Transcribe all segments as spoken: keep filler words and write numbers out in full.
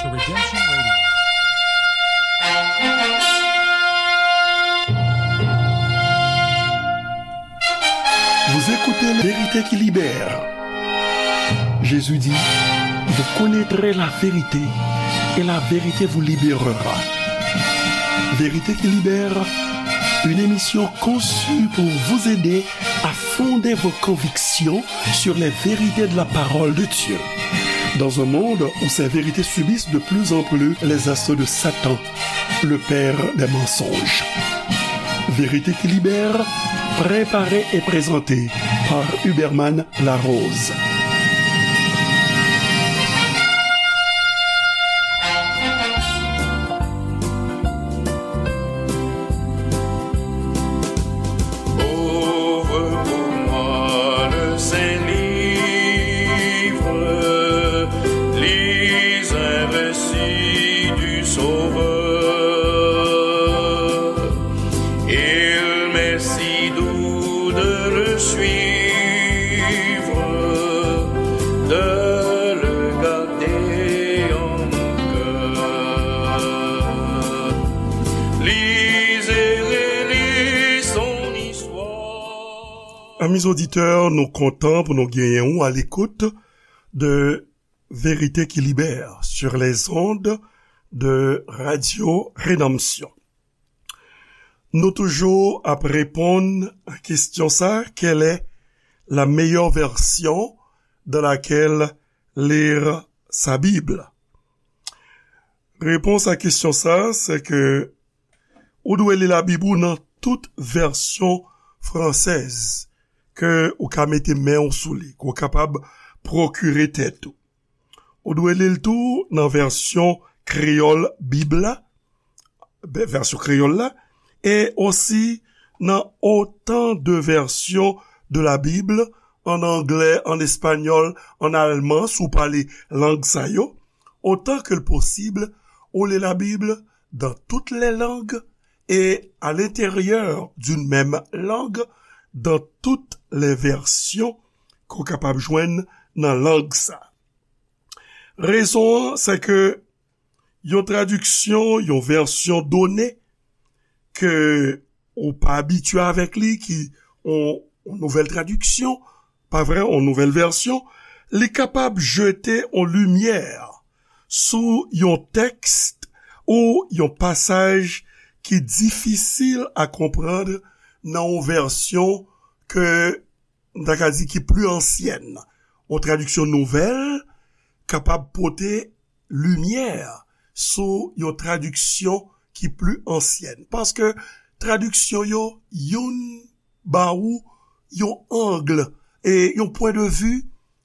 To Redemption Radio. Vous écoutez Vérité qui libère. Jésus dit, vous connaîtrez la vérité et la vérité vous libérera. Vérité qui libère, une émission conçue pour vous aider à fonder vos convictions sur les vérités de la parole de Dieu. Dans un monde où ces vérités subissent de plus en plus les assauts de Satan, le père des mensonges. Vérité qui libère, préparée et présentée par Huberman Larose. Ouvre pour moi le saint livre, lis un récit du Sauveur. Il m'est si doux de le suivre, de le garder en mon cœur. Lis et relis son histoire. Amis auditeurs, nou kontan pou nou genyen ou à l'écoute de Vérité qui libère sur les ondes de Radio Rédemption. Nou toujou ap reponn a kesyon sa, quelle est la meilleure version dans laquelle lire sa Bible? Repons a kesyon sa, se ke ou dwe li Labib ou nan tout vèsyon fransèz ke ou ka mete men w sou li, ke w kapab pwokire tèt ou. Ou dwe li l tou nan vèsyon kreyòl Bib la, vèsyon kreyòl la, e osi nan autant de versions de la Bible, an anglè, an espanyòl, an alman, si w pale lang sa yo, autant que possible, ou li Labib dans toutes les langues et à l'intérieur d'une même langue, dans toutes les versions ke w kapab jwenn nan lang sa. Rezon an, se ke yon tradiksyon, yon vèsyon done ke ou pa abitye avèk li, ki yon, yon nouvèl tradiksyon, pa vre, yon nouvèl vèsyon, li kapab jete yon limyè sou yon tèks ou yon pasaj ki difisil a konprann nan yon vèsyon ke m ta ka di ki pli ansyèn. Yon tradiksyon nouvèl kapab pote limyè sou yon tradiksyon ki pli ansyèn. Paske tradiksyon yo, youn ba ou yon ang, e yon pwen de vi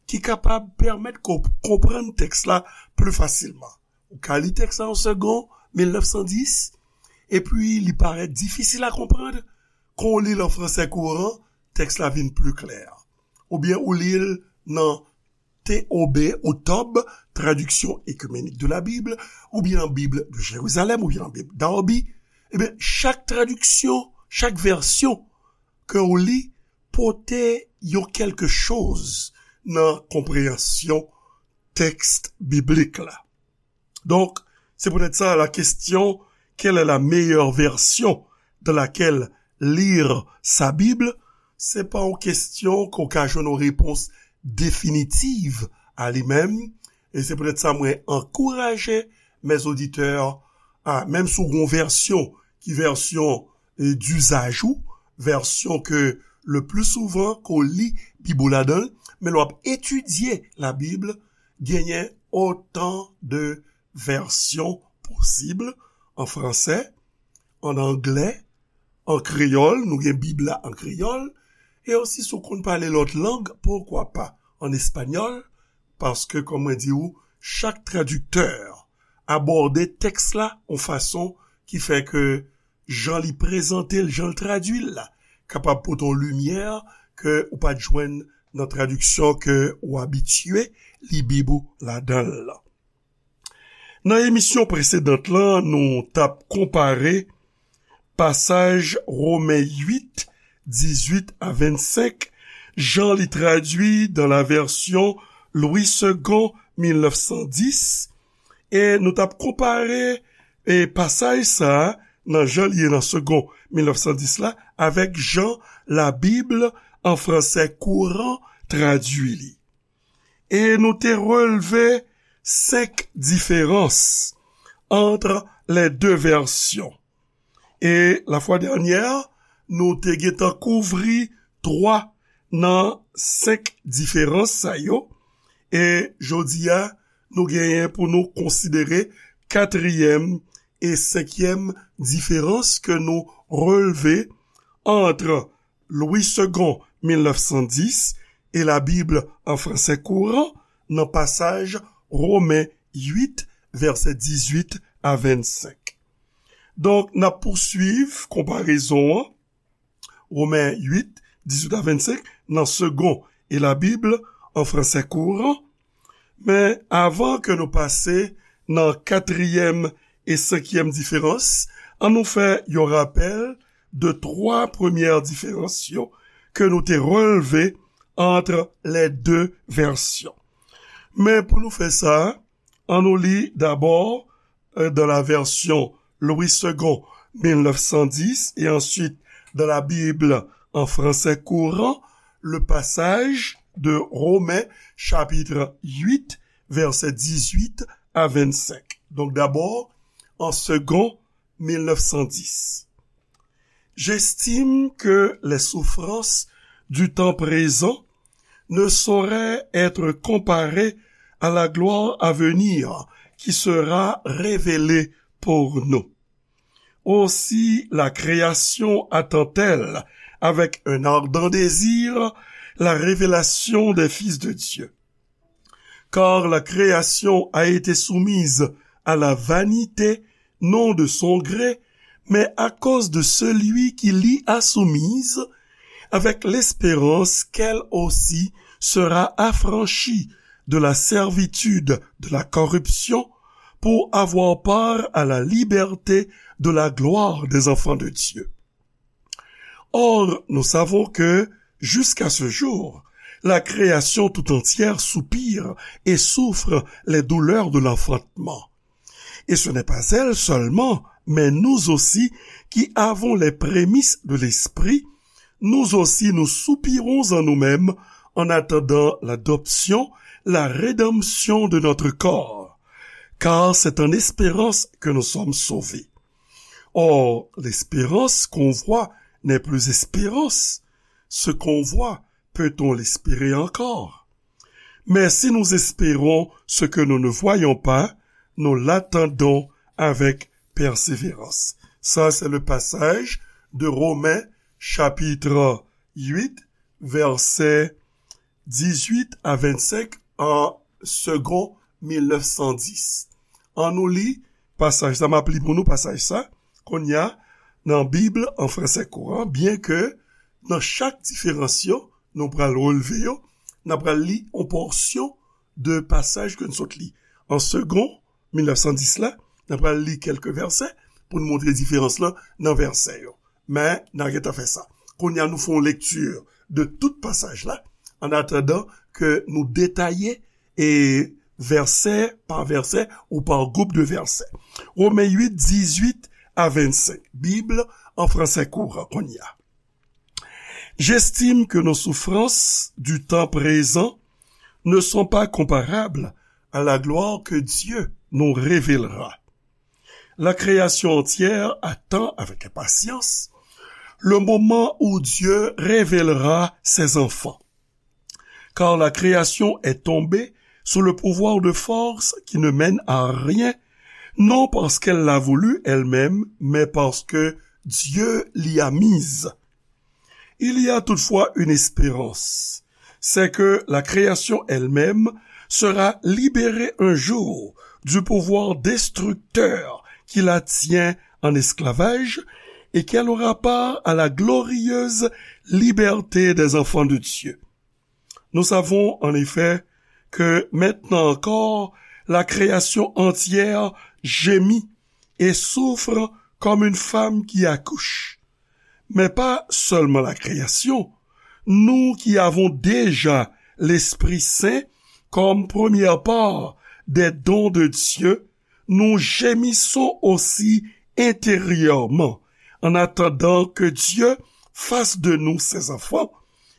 ki kapab pèmèt ke w konprann tèks la pli fasilman. Ou ka li tèks la yon segonn, mil nèf san dis, epi li parèt difisil a konprann, kan w li l an fransè kouran, tèks la vin pli klè. Oubyen ou li l nan T O B ou T O B, Traduction Œcuménique de la Bible, oubyen nan Bib de Jérusalem, oubyen nan Bib Darby. Ebyen, chak tradiksyon, chak vèsyon ke w li, pote yon kèlke choz nan konpreyansyon tèks biblik la. Donk, se poutèt sa, la question, quelle est la meilleure version dans laquelle lire sa Bible? Se pa yon kesyon ke w ka jwenn yon repons definitiv a li menm. E se poutèt sa, mwen ankouraje mes auditeurs a, menm si w gen yon vèsyon ki vèsyon, e, dizaj ou, vèsyon ke le pli souvan ke w li Bib ou ladan l, men lè w ap etidye Labib, genyen autant de versions possibles, an fransè, an anglè, an kreyòl, nou gen Bib la an kreyòl, e osi si w konn pale lòt lang, poukwa pa an espanyòl, paske, kòm mwen di w, chak tradiktè abòde tèks la yon fason ki fè ke jan li prezante l, jan l tradui l la, kapab pote yon limyè ke ou pa t jwenn nan tradiksyon ke ou abitye li Bib ou ladan l lan. Nan emisyon presedant lan, nou t ap konpare pasaj Women uit, dizuit a vennsenk, jan li tradui dans la version Louis Segond mil nèf san dis, E nou t ap konpare e pasaj sa a nan jan l ye nan Segond mil nèf san dis la avèk jan Labib an fransè kouran tradui li. E nou te relve senk diferans entre les deux versions. E lafwa dènyè, nou te gentan kouvri twa nan senk diferans sa yo. E jodi a, nou genyen pou nou konsidere katriyèm e senkyèm diferans ke nou relve entre Louis Segond mil nèf san dis e Labib an fransè kouran nan pasaj Romen uit, vèsè dizuit a vennsenk. Donk, n ap pousuiv konparezon an, Romen uit, dizuit a vennsenk, nan Segond e Labib an fransè kouran. Men, avan ke nou pase nan katriyèm e senkyèm diferans, ann nou fè yon rapèl de twa premyè diferans yo ke nou te relve entre les deux versions. Men pou nou fè sa, ann nou li dabò euh, dans la version Louis Segond mil nèf san dis et ensuite dans la Bible en français courant, le passage de Romains chapitre huit, versets dix-huit à vingt-cinq. Donc d'abord, en Segond mil nèf san dis. J'estime que les souffrances du temps présent ne sauraient être comparées à la gloire à venir qui sera révélée pour nous. Aussi la création attend-elle avec un ardent désir la révélation des fils de Dieu. Car la création a été soumise à la vanité, non de son gré, mais à cause de celui qui l'y a soumise, avec l'espérance qu'elle aussi sera affranchie de la servitude de la corruption pour avoir part à la liberté de la gloire des enfants de Dieu. Or, nous savons que, jusqu'à ce jour, la création tout entière soupire et souffre les douleurs de l'enfantement. Et ce n'est pas elle seulement, mais nous aussi, qui avons les prémices de l'Esprit, nous aussi nous soupirons en nous-mêmes en attendant l'adoption, la rédemption de notre corps. Car c'est en espérance que nous sommes sauvés. Or, l'espérance qu'on voit n'est plus espérance. Ce qu'on voit, peut-on l'espérer encore? Mais si nous espérons ce que nous ne voyons pas, nous l'attendons avec persévérance. Ça, c'est le passage de Romains chapitre huit, verset dix-huit à vingt-cinq en Segond mil nèf san dis. Ann nou li pasaj sa, m ap li pou nou pasaj sa, kounye a, nan Bib an fransè kouran, byen ke nan chak diferans yo, nou pral relve yo, n ap pral li yon pòsyon de pasaj ke n sot li. An Segond mil nèf san dis la, n ap pral li kèlke vèsè pou n montre diferans lan nan vèsè yo. Men, n a gentan fè sa. Kounye a, nou fè yon lekti de tout pasaj la, an atandan ke nou detaye e vèsè pa vèsè ou pa gwoup de vèsè. Romen uit, dizuit a vennsenk. Bib an fransè kouran kounye a. J'estime que nos souffrances du temps présent ne sont pas comparables à la gloire que Dieu nous révélera. La création entière attend avec impatience le moment où Dieu révélera ses enfants. Car la création est tombée sous le pouvoir de forces qui ne mènent à rien, non parce qu'elle l'a voulu elle-même, mais parce que Dieu l'y a mise. Il y a toutefois une espérance, c'est que la création elle-même sera libérée un jour du pouvoir destructeur qui la tient en esclavage et qu'elle aura part à la glorieuse liberté des enfants de Dieu. Nous savons en effet que maintenant encore la création entière gémit et souffre comme une femme qui accouche. Mais pas seulement la création, nous qui avons déjà l'Esprit Saint comme première part des dons de Dieu, nous gémissons aussi intérieurement, en attendant que Dieu fasse de nous ses enfants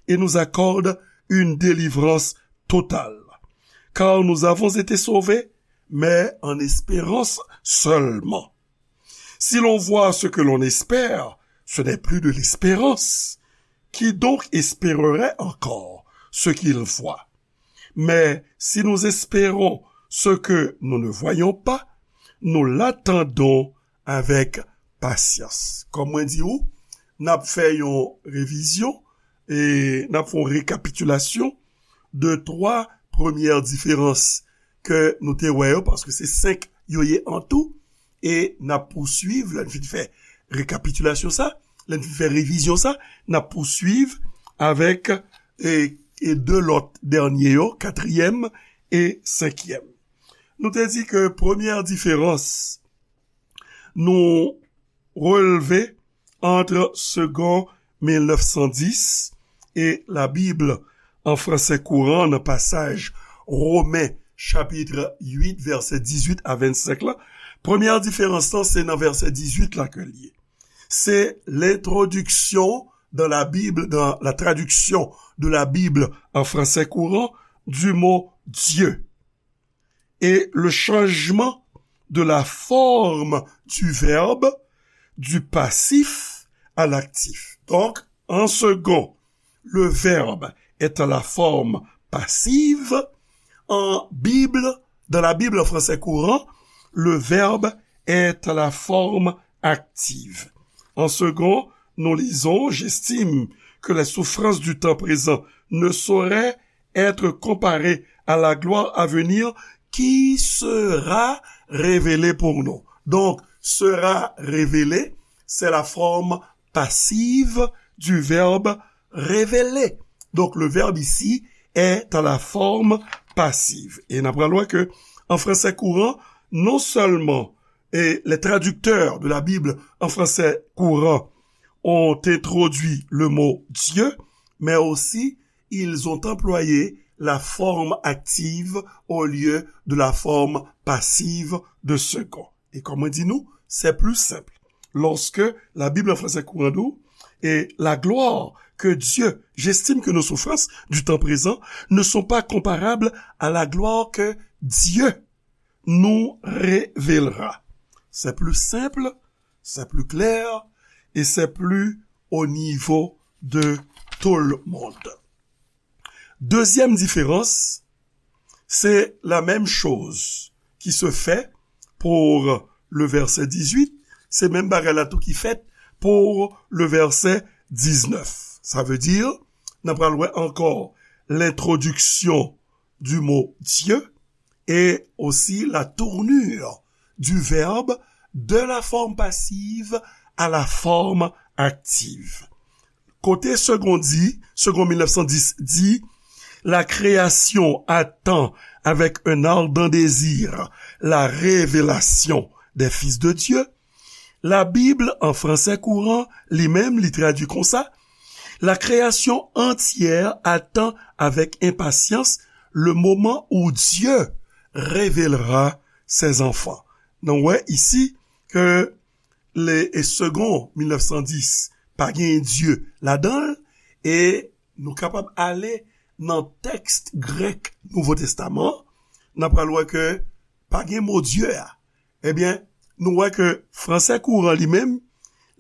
et nous accorde une délivrance totale. Car nous avons été sauvés, mais en espérance seulement. Si l'on voit ce que l'on espère, ce n'est plus de l'espérance. Qui donc espérerait encore ce qu'il voit? Mais si nous espérons ce que nous ne voyons pas, nous l'attendons avec patience. Kòm mwen di ou, n ap fè yon revizyon e n ap fè yon rekapitilasyon de twa premyè diferans ke nou te wè yo, paske se senk yo ye an tou, e n ap pouswiv, lè n fin fè rekapitilasyon sa, lè n fin fè revizyon sa, n ap pouswiv avèk e, e de lòt dènye yo, katriyèm e senkyèm. Nou te di ke premyè diferans nou relve entre Segond mil nèf san dis et la Bible en français courant nan pasaj Women chapit uit vèsè dizuit a vennsenk la. Premyè diferans lan se nan vèsè dizuit la ke l ye. Se l'introduction dans la Bible, dans la traduction de la Bible en français courant du mot Dieu et le changement de la forme du verbe du passif à l'actif. Donc, en second, le verbe est à la forme passive. En Bible, dans la Bible en français courant, le verbe est à la forme active. En second, nous lisons, j'estime que les souffrances du temps présent ne sauraient être comparées à la gloire à venir qui sera révélée pour nous. Donc, sera révélée, c'est la forme passive du verbe révéler. Donc, le verbe ici est à la forme passive. E n ap pral wè ke, en français courant, non seulement et les traducteurs de la Bible en français courant ont introduit le mot Dieu, mais aussi ils ont employé la forme active au lieu de la forme passive de second. Et comme on dit nous, c'est plus simple. Lorsque la Bible en français courant dit, et la gloire que Dieu, j'estime que nos souffrances du temps présent ne sont pas comparables à la gloire que Dieu nous révélera. C'est plus simple, c'est plus clair et c'est plus au niveau de tout le monde. Deuxième différence, c'est la même chose qui se fait pour le verset dix-huit, se menm bagay la tou ki fèt pour le verset dix-neuf. Sa vle di, n ap pral wè ankò l'introduction du mot Dieu et aussi la tournure du verbe de la forme passive à la forme active. Kote Segond di, Segond mil nèf san dis di, la création attend avec un ardent désir la révélation des fils de Dieu. La Bible en français courant, li menm, li tradui konsa, la création entière attend avec impatience le moment où Dieu révélera ses enfants. Nou wè isi ke le, e Segond mil nèf san dis pa gen Dye ladan l, e nou kapab ale nan tèks grèk Nouvo Testaman, n ap pral wè ke pa gen mo Dye a. Ebyen, nou wè ke fransè kouran li menm,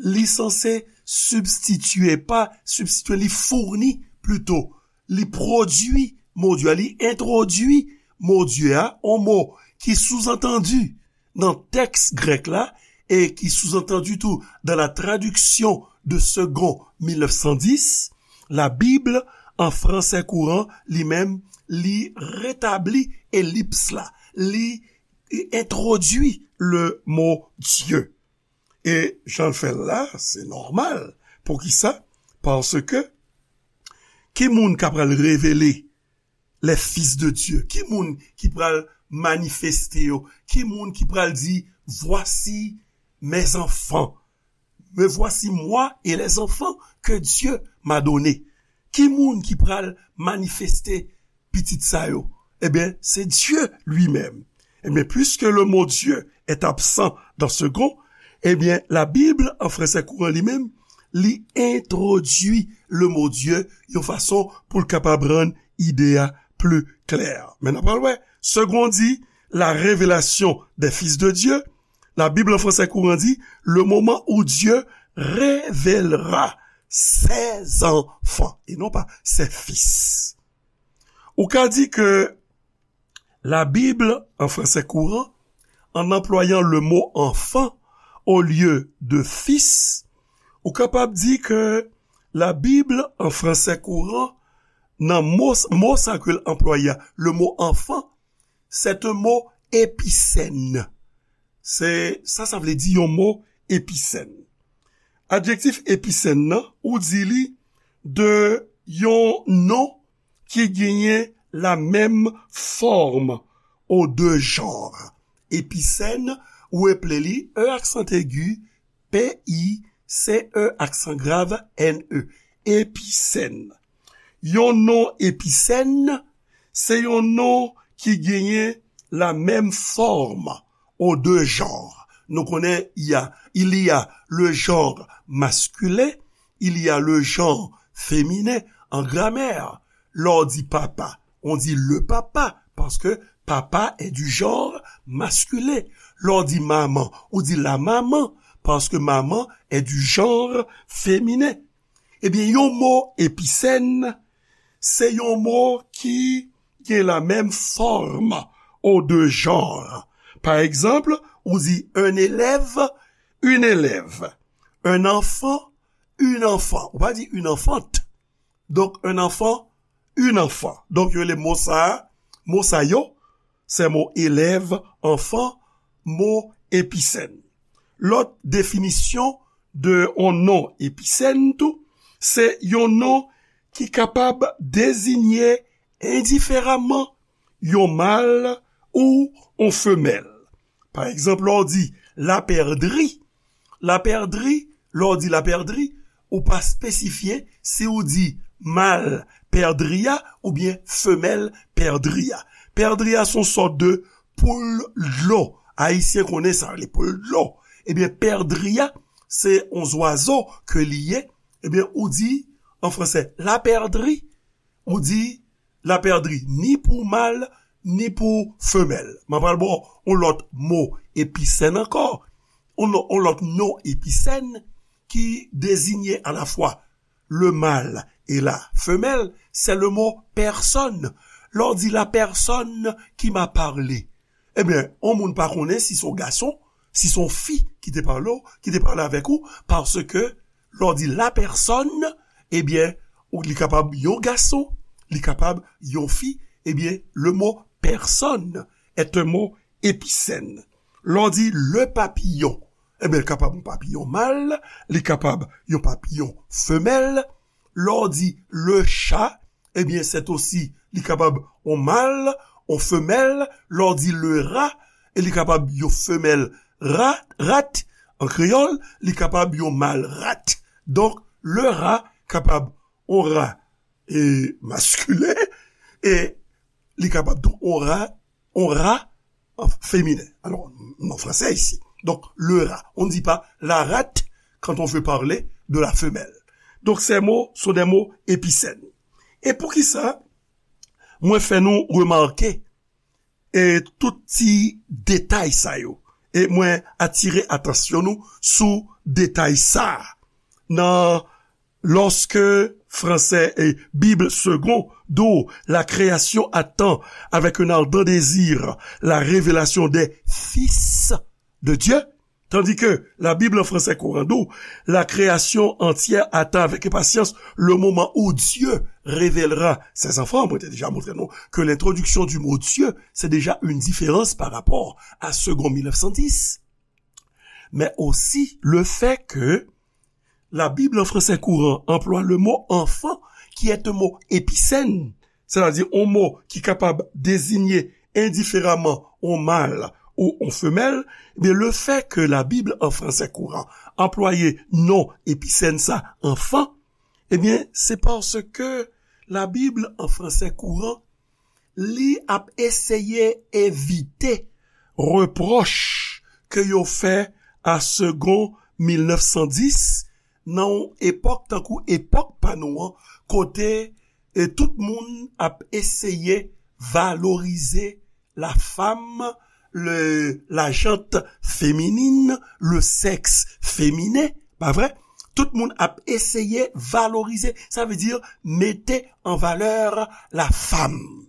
li sanse sibstitye, pa sibstitye, li founi plito, li pwodui mo Dye a, li entwodui mo Dye a, on mo ki souzantandi nan tèks grèk la, e ki souzantandi tou dans la traduction de Segond mil nèf san dis, la Bible en français courant, li menm, li retabli elips la, li entwodui le mo Dye. E jan l fè l la, se nòmal. Poukisa? Paske ki moun k ap pral revele les fils de Dieu? Ki moun ki pral manifeste yo? Ki moun ki pral di, voici mes enfants, me voici moi et les enfants que Dieu m'a donné? Ki moun ki pral manifeste pitit sa yo? Ebyen, se Dye li menm. Ebyen, puisque le mot Dieu est absent dans Segond, ebyen, la Bible en français courant li menm, li entwodui le mot Dieu yon fason pou l kapab rann ide a pli klè. Men n ap pral wè, Segond di, la révélation des fils de Dieu, la Bible en français courant di, le moment où Dieu révélera ses enfants, et non pas ses fils. Ou ka di ke la Bible en français courant, en employant le mot enfant au lieu de fils, ou kapab di ke la Bible en français courant, nan mo, mo sa ke l anplwaye a, le mot enfant, c'est un mot épicène. Se, sa, sa vle di yon mo épicène. Adjektif épicène nan, ou di li de yon non ki genyen la menm fòm aux deux genres. Épicène, ou eple li, E aksan egi, P I C E aksan grav N E. Épicène. Yon non épicène, se yon non ki genyen la menm fòm aux deux genres. Nou konnen, il y a, il y a le genre masculin, il y a le genre féminin en grammaire. Lè w di papa, on dit le papa, parce que papa est du genre masculin. Lè w di maman, ou di la maman, parce que maman est du genre féminin. Ebyen, yon mo épicène, se yon mo ki gen la menm fòm aux deux genres. Pa egzanp, ou di un élève, une élève, un enfant, une enfant. Ou pa di une enfant. Donk, un enfant, une enfant. Donk, yo rele mo sa a, mo sa yo, se mo élève, enfant, mo épicène. Lòt definisyon de yon non épicène tou, se yon non ki kapab deziye endiferaman yon mal ou yon femèl. Pa egzanp, lè w di lapèdri, lapèdri, lè w di lapèdri, ou pa espesifye si w di mal pèdri a oubyen femèl pèdri a. Pèdri a se yon sòt de poul dlo. Ayisyen konnen sa, rele poul dlo. Ebyen, pèdri a, se yon zwazo ke li ye. Ebyen, ou di, an fransè, lapèdri, ou di lapèdri ni pou mal, ni pou femèl. M ap pral ba w yon lòt mo épicène ankò, yon, yon lòt non épicène ki deziye alafwa le mâle et la femelle, c'est le mot personne. Lè w di la personne qui m'a parlé, ebyen, yon moun pa konnen si se yon gason, si se yon fi ki te pale w, ki te pale avèk ou, paske lè w di la personne, ebyen, ou, li kapab yon gason, li kapab yon fi, ebyen, le mot personne est un mot épicène. Lè w di le papillon, ebyen, li kapab yon papiyon mal, li kapab yon papiyon femèl. Lè w di le chat, ebyen, c'est aussi, li kapab yon mal, yon femèl. Lè w di le rat, e li kapab yon femèl rat, rat, an kreyòl, li kapab yon mal rat. Donk, le rat kapab yon rat, e, maskilen, e li kapab tou yon rat, yon rat, an feminen. Alò, non fransè isi. Donk, le rat. On ne dit pas la rate quand on veut parler de la femelle. Donk, ces mots sont des mots épicènes. E poukisa mwen fè nou remake, e, tout ti detay sa yo? E mwen atire atansyon nou sou detay sa a. Nan, lorsque français et Bible Segond dit la création attend avec un ardent désir la révélation des fils de Dieu, tandis que la Bible en français courant dit la création entière attend avec impatience le moment où Dieu révélera ses enfants. Mwen te deja montre nou ke lentrodiksyon di mo Dieu, se deja yon diferans pa rapò a Segond mil nèf san dis. Mais aussi le fait que la Bible en français courant emploie le mot enfant, qui est un mot épicène, c'est-à-dire un mot qui est capable de désigner indifféremment un mâle ou une femelle, eh bien, le fait que la Bible en français courant emploie non épicène sa enfant, eh bien, c'est parce que la Bible en français courant li ap eseye evite repwòch ke yo fè a Segond mil nèf san dis nan yon epòk tankou epòk pa nou an, kote e tout moun ap eseye valorize la femme, le, la gente féminine, le sexe féminin, pa vre? Tout moun ap eseye valorize, sa vle di mete an valè la femme.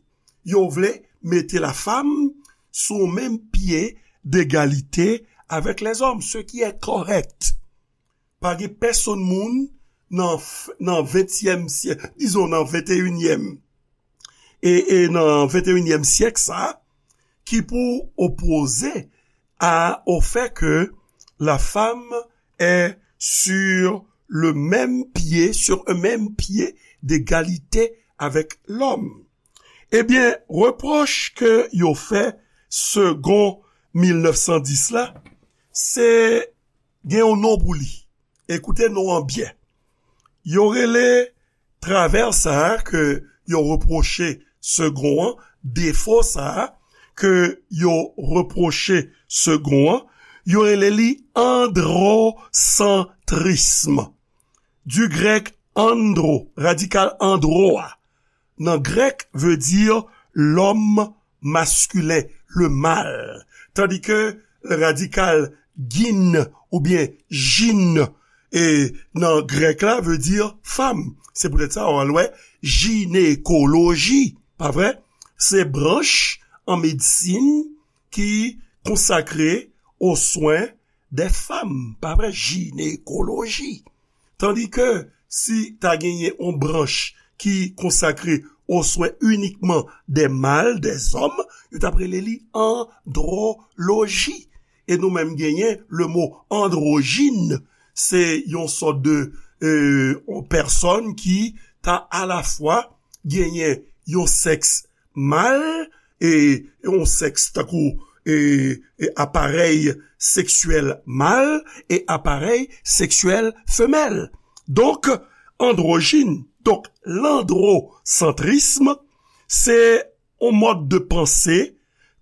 Yo vle mete la femme sou menm pye degalite avèk lèzòm, ce qui est correct. Pa gen pèsonn moun nan, nan ventyèm syèk, dizon nan venteyinyèm, e, e nan venteyinyèm syèk sa, ki pou opoze a, au fait que la femme est sur le même pied, sur un même pied d'égalité avec l'homme. Ebyen, repwòch ke yo fè Segond mil nèf san dis la, se gen yon non pou li. Ekoute non an byen. Yo rele travè sa a ke yo repwoche Segond an, defo sa a ke yo repwoche Segond an, yo rele li androsantrism. Du grec andro, radikal andro a, nan grèk, veut dire l'homme masculin, le mâle. Tandis que radikal gyn oubyen gyn, e nan grèk la, veut dire femme. Se poutèt sa, w al wè jinekoloji, pa vre? Se branch an medsin ki konsakre aux soins des femmes, pa vre? Jinekoloji. Tandis que si ta genyen yon branch ki konsakre aux soins uniquement des mâles, des hommes, yo t ap rele li androloji. E nou menm genyen le mot androgyne, se yon sòt de, euh, yon pèsonn ki ta alafwa genyen yon sèks mal e yon sèks tankou e, e aparèy seksyèl mal e aparèy seksyèl femèl. Donk, androjin, donk, landrosantrism, se yon mòd de panse,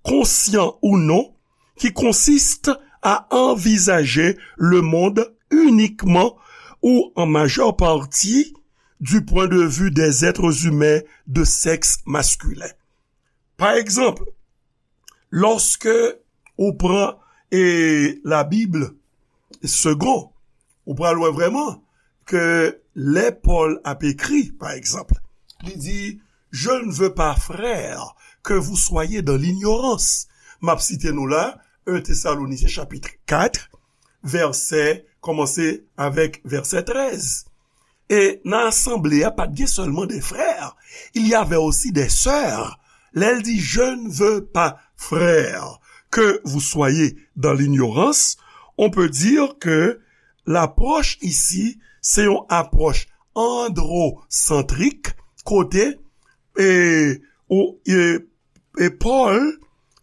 konsyan ou non, ki konsiste à envisager le monde uniquement ou en majeure partie du point de vue des êtres humains de sexe masculin. Pa egzanp, lòske ou pran e Labib Segond, ou pral wè vrèman ke lè Pòl ap ekri, pa egzanp, li di, je ne veux pas, frères, que vous soyez dans l'ignorance. M ap site nou la, un Thessaloniciens chapitre quatre, vèsè, kòmanse avèk vèsè trèz. E nan asanble a, pa t gen sèlman de frè, il y avait aussi des sœurs. Lè l di, je ne veux pas, frères, que vous soyez dans l'ignorance, on peut dire que l'approche ici, se yon apwòch androsantrik, kote e, ou, e, e Pòl,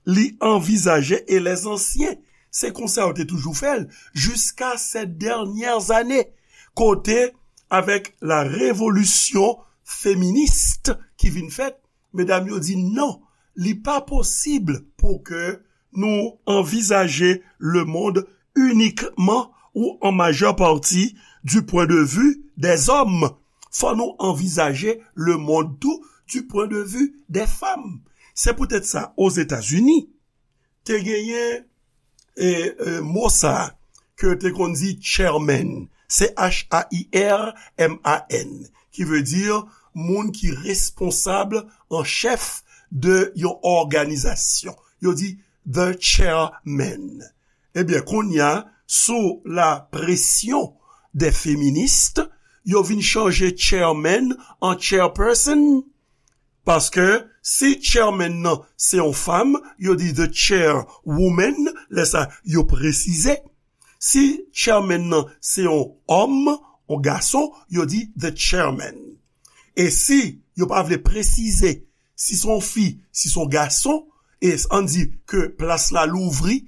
li anvizaje, e lèzansyen, se konsa yo te toujou fè l, jiska ces dernières années, kote, avèk la révolution féministe ki vin fèt, medam yo di non, li pa posib pou ke nou anvizaje le monde uniquement ou en majeure partie du point de vue des hommes. Fò nou anvizaje le monde tou du point de vue des femmes. Se poutèt sa, Ozetazini, te genyen e, e, mo sa a ke yo te konn di chairman, C H A I R M A N, ki vle di moun ki responsab an chèf de yon òganizasyon. Yo di the chairman. Ebyen, kounye a, sou la pression des féministes, yo vin chanje chairman an chairperson. Paske si chairman nan se yon fanm, yo di the chairwoman, lè sa yo presize. Si chairman nan se yon òm, yon gason, yo di the chairman. E si yo pa vle presize si se yon fi, si se yon gason, e ann di ke plas la louvri,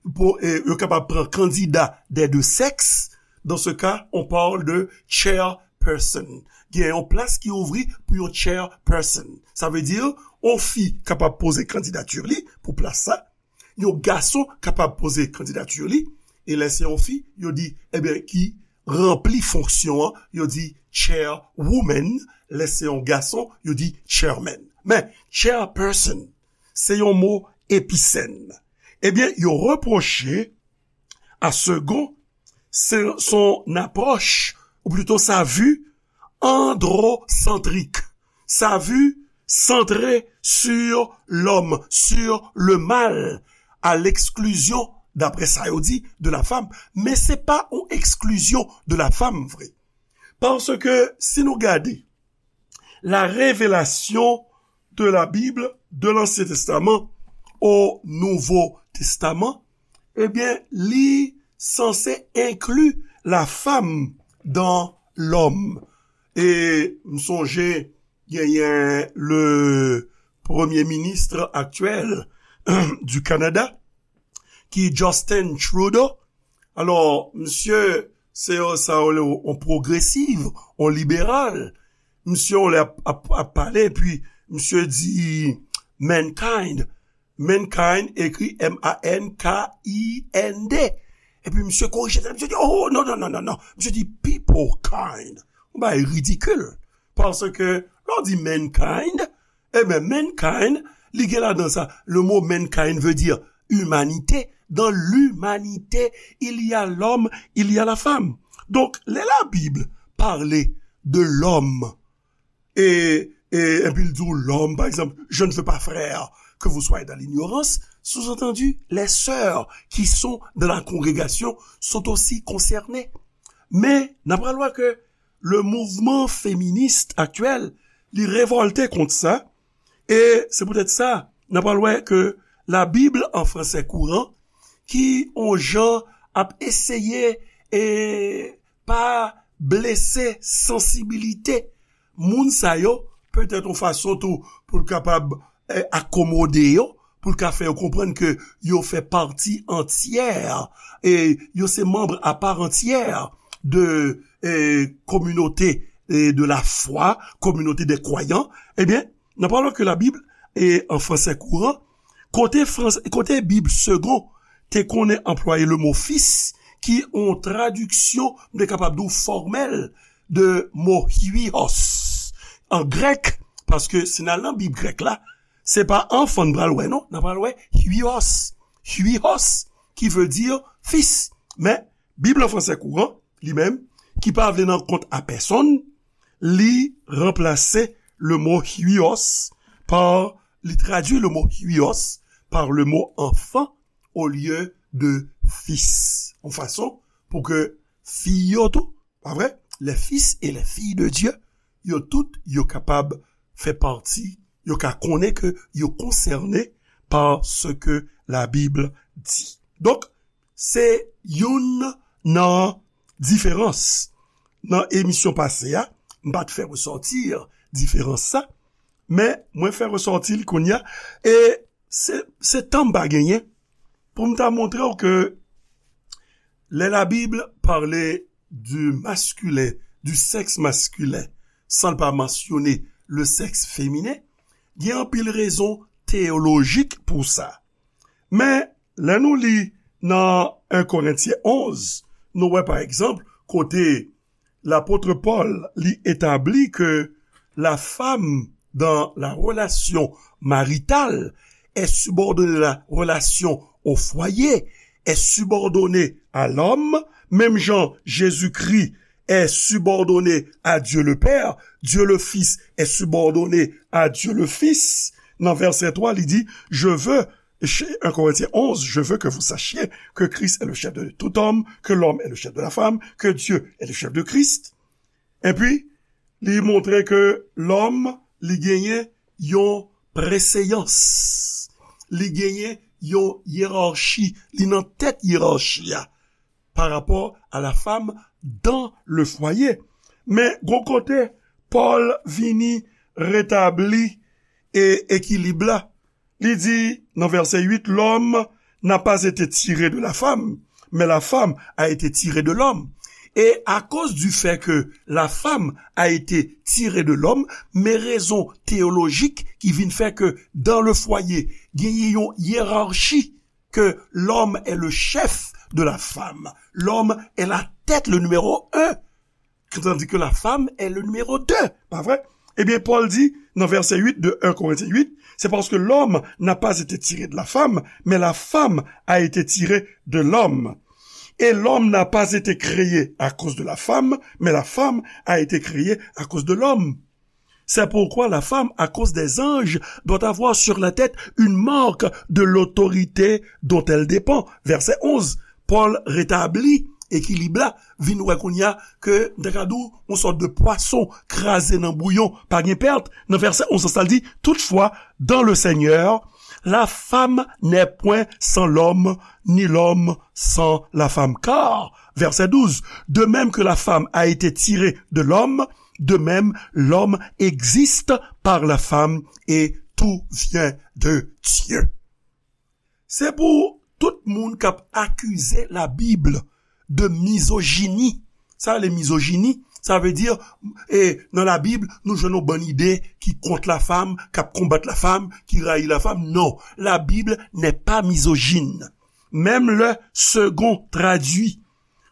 pou, e, yo kapab pran kandida des deux sexes, dans ce cas, on parle de chairperson. Gen yon plas ki ouvri pou yon chairperson. Sa vle di, yon fi kapab poze kandidati li pou plas sa. yon gason kapab poze kandidati li, e lè se yon fi, yo di, ebyen, ki ranpli fonksyon an, yo di chairwoman, lè se yon gason, yo di chairman. Men, chairperson, se yon mo episèn. Ebyen, yo repwoche a Segond se, son apwòch, ou plito sa vi androsantrik, sa vi santre sur l'homme, sur le mâle, à l'exclusion, d'après sa yo di, de la femme. Men se pa yon eksklizyon de la femme, vre. Paske si nou gade la révélation de la Bible, de l'Ancien Testament au Nouveau Testament, ebyen, li sanse enkli la femme dans l'homme. E m sonje genyen le premye minis aktyèl du Canada, ki Justin Trudeau. Alò, misye, se yon, sa yo rele yon pwogresiv, yon liberal. Misye, yon lè ap, ap, ap pale, epi misye di mankind. Mankind ekri M A N K I N D. Epi misye korije tèt, misye di, oh, non, non, non, non, non. Misye di people kind. Yon bagay ridikil. Paske, lè w di mankind, ebyen, mankind, li gen ladan sa. Le mot mankind veut dire humanité. Dans l'humanité, il y a l'homme, il y a la femme. Donc, lè la Bible parle de l'homme, et, et, et puis il dit l'homme, par exemple, je ne veux pas, frère, que vous soyez dans l'ignorance, sous-entendu, les sœurs qui sont dans la congrégation sont aussi concernées. Men, n ap pral wè ke le mouvman feminis aktyèl, li revòlte kont sa, e se poutèt sa, n ap pral wè ke la Bib an fransè kouran, ki on jan ap eseye e pa blese sansibilite moun sa yo, petèt on fason tou pou l kapab, eh, akomode yo, pou l ka fè yo konprann ke yo fè pati antyè, e yo se manm apa antyè de, eh, kominote, eh, de la fwa, kominote de kwayan, ebyen, nan pawòl ke la Bib, e an fransè kouran, kote frans-, kote Bib Segond te konnen anplwaye le mo fis, ki on tradiksyon, m te kapab di w fòmèl, de mo huios an grèk, paske si n al nan Bib grèk la, se pa anfan n pral wè, non, n pral wè huios. Huios, ki vle di fis. Men, Bib an fransè kouran, li menm, ki pa vle nan kont a pèsonn, li ranplase le mo huios pa, li tradui le mo huios par le mot enfant au lieu de fils. Yon fason pou ke fi yo tou, pa vre? Les fils et les filles de Dieu, yo tout, yo kapab fè pati, yo ka konnen ke yo konsène pa sa ke la Bib di. Donk, se youn nan diferans. Nan emisyon pase a, m pa t fè resòti diferans sa, men mwen fè resòti li kounye a, e se, se tan m pa genyen pou m ta montre w ke lè la Bib pale du masculin, du sexe masculin, san l pa mansyone le sexe féminin, gen anpil rezon teyolojik pou sa. Men, lè nou li nan en Korentyen onz, nou wè, pa egzanp, kote lapot Pòl, li etabli ke la femme dans la relation maritale est subordonnée à la relation au foyer, est subordonnée à l'homme, menm jan Jezikri est subordonné à Dieu le Père, Dieu le Fils est subordonné à Dieu le Fils. Nan vèsè twa, li di, je veux, en Korentyen onz, je veux que vous sachiez que Christ est le chef de tout homme, que l'homme est le chef de la femme, que Dieu est le chef de Christ. Epi, li montre ke lòm, li genyen yon preseyans. Li genyen yon yerachi. Li nan tèt yerachi a pa rapò a la femme dans le foyer. Men, gon kote, Pòl vini retabli e ekilib la. Li di nan vèsè uit, l'homme n'a pas été tiré de la femme, mais la femme a été tirée de l'homme. E akoz di fè ke la femme a été tirée de l'homme, men rezon teyolojik ki vin fè ke dans le foyer, genyen yon yerachi que l'homme est le chef de la femme. L'homme est la tête, le numéro un, tandis que la femme est le numéro deux. Pa vre? Ebyen, Pòl di nan vèsè uit de un Corinthiens huit, c'est parce que l'homme n'a pas été tiré de la femme, mais la femme a été tirée de l'homme. Et l'homme n'a pas été créé à cause de la femme, mais la femme a été créée à cause de l'homme. C'est pourquoi la femme, à cause des anges, doit avoir sur la tête une marque de l'autorité dont elle dépend. Verset onze. Pòl retabli ekilib la, vin wè kounye a ke, m ta ka di w, yon sòt de pwason kraze nan bouyon, pa gen pèt. Nan vèsè onz sa l di, toutefois, dans le Seigneur, la femme n'est point sans l'homme, ni l'homme sans la femme. Car, verset douze, de même que la femme a été tirée de l'homme, de même l'homme existe par la femme et tout vient de Dieu. Se pou tout moun k ap akize Labib de mizojini. Sa rele mizojini, sa vle di, e, nan Labib, nou jwenn yon bann ide ki kont lafam, k ap konbat lafam, ki rayi lafam. Non, la Bible n'est pas misogyne. Même le Segond traduit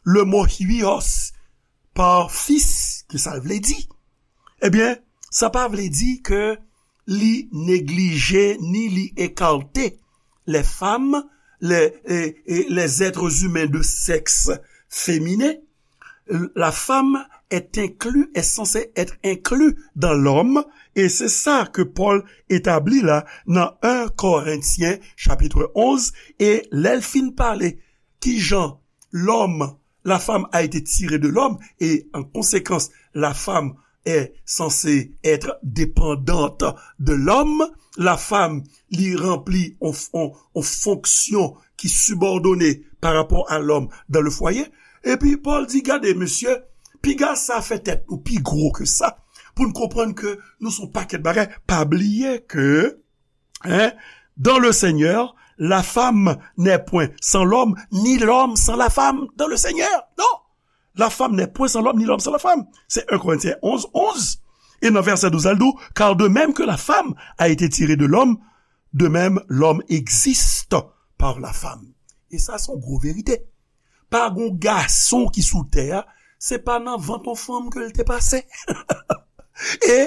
le mot huios par fils, ki sa l vle di? Ebyen, sa pa vle di ke li neglije ni li ekate les femmes, les, et, et les êtres humains de sexe féminin. La femme est inclus, est censée être inclus dans l'homme, et c'est ça que Paul établit là dans un Corinthiens chapitre onze, e lè l fin pale kijan lòm, la femme a été tirée de l'homme, et en conséquence, la femme est censée être dépendante de l'homme. La femme, li ranpli on, on, on fonksyon ki sibòdone pa rapò a lòm dan le fwaye. Epi Pòl di, gade, mesye, piga sa fè tèt nou pi gwo ke sa, pou n konprann ke nou se yon pakèt bagay. Pa bliye ke, hein, dans le Seigneur, la femme n'est point sans l'homme, ni l'homme sans la femme dans le Seigneur. Non, la femme n'est point sans l'homme, ni l'homme sans la femme. Se un Corinthiens onze, onze. E nan vèsè douz, al di w, car de même que la femme a été tirée de l'homme, de même l'homme existe par la femme. E sa se yon gwo verite. Pa gon gason ki sou tè a, se pa nan vant yon fanm ke l te pase. E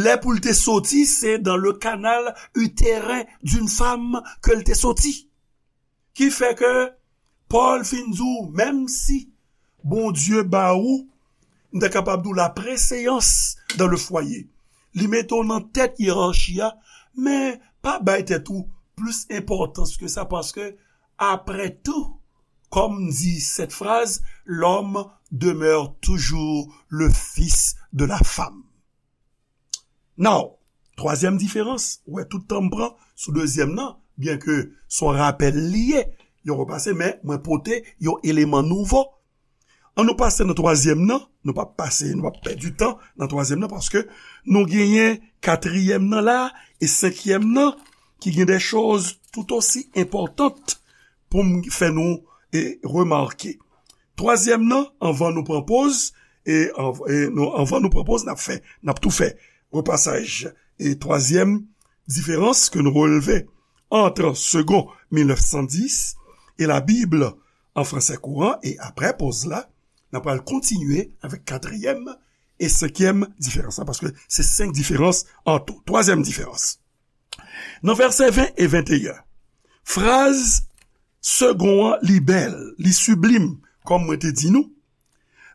lè pou l te soti, se dans le canal utérin d'une femme ke l te soti. Ki fè ke Pòl fin di w, menm si Bondye ba ou, m ta kapab di w, la preseyans dan le fwaye, li mete w nan tèt yerachi a, men pa bay tèt ou plis enpòtans ke sa, paske, après tout, comme dit cette phrase, l'homme demeure toujours le fils de la femme. Now, twazyèm diferans, ou wè tout tan m pran sou dezyèm nan, byenke se yon rapèl li ye, yon repase, men mwen pote yon eleman nouvo. An nou pase nan twazyèm nan, nou p ap pase, nou p ap pèdi tan nan twazyèm nan, paske nou genyen katriyèm nan la, e senkyèm nan, ki gen de choz tout osi enpòtant pou m fè nou, e, remake. Twazyèm nan, anvan nou pran poz, e, anv-, e nou, anvan nou pran poz, n ap fè, n ap tou fè repasaj. E twazyèm diferans ke nou releve entre Segond mil nèf san dis et la Bible en français courant, e aprè poz la, n ap pral kontinye avèk katriyèm e senkyèm diferans la, paske se senk diferans an tou. Twazyèm diferans. Nan vèsè ven e venteyen, fraz Segond an, li bèl, li siblim, kòm mwen te di nou.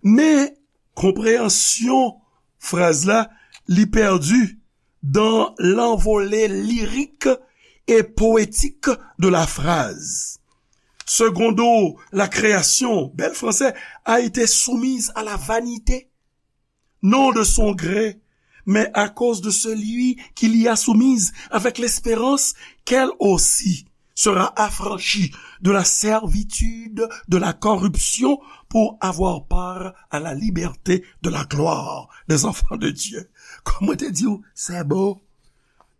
Men, konpreyansyon fraz la, li pèdi dans l'envolée lyrique et poétique de la phrase. Secondo, la création, bèl fransè, a été soumise à la vanité, non de son gré, mais à cause de celui qui l'y a soumise, avec l'espérance qu'elle aussi sera affranchie de la servitude de la corruption pour avoir part à la liberté de la gloire des enfants de Dieu. Kòm mwen te di w, se bo.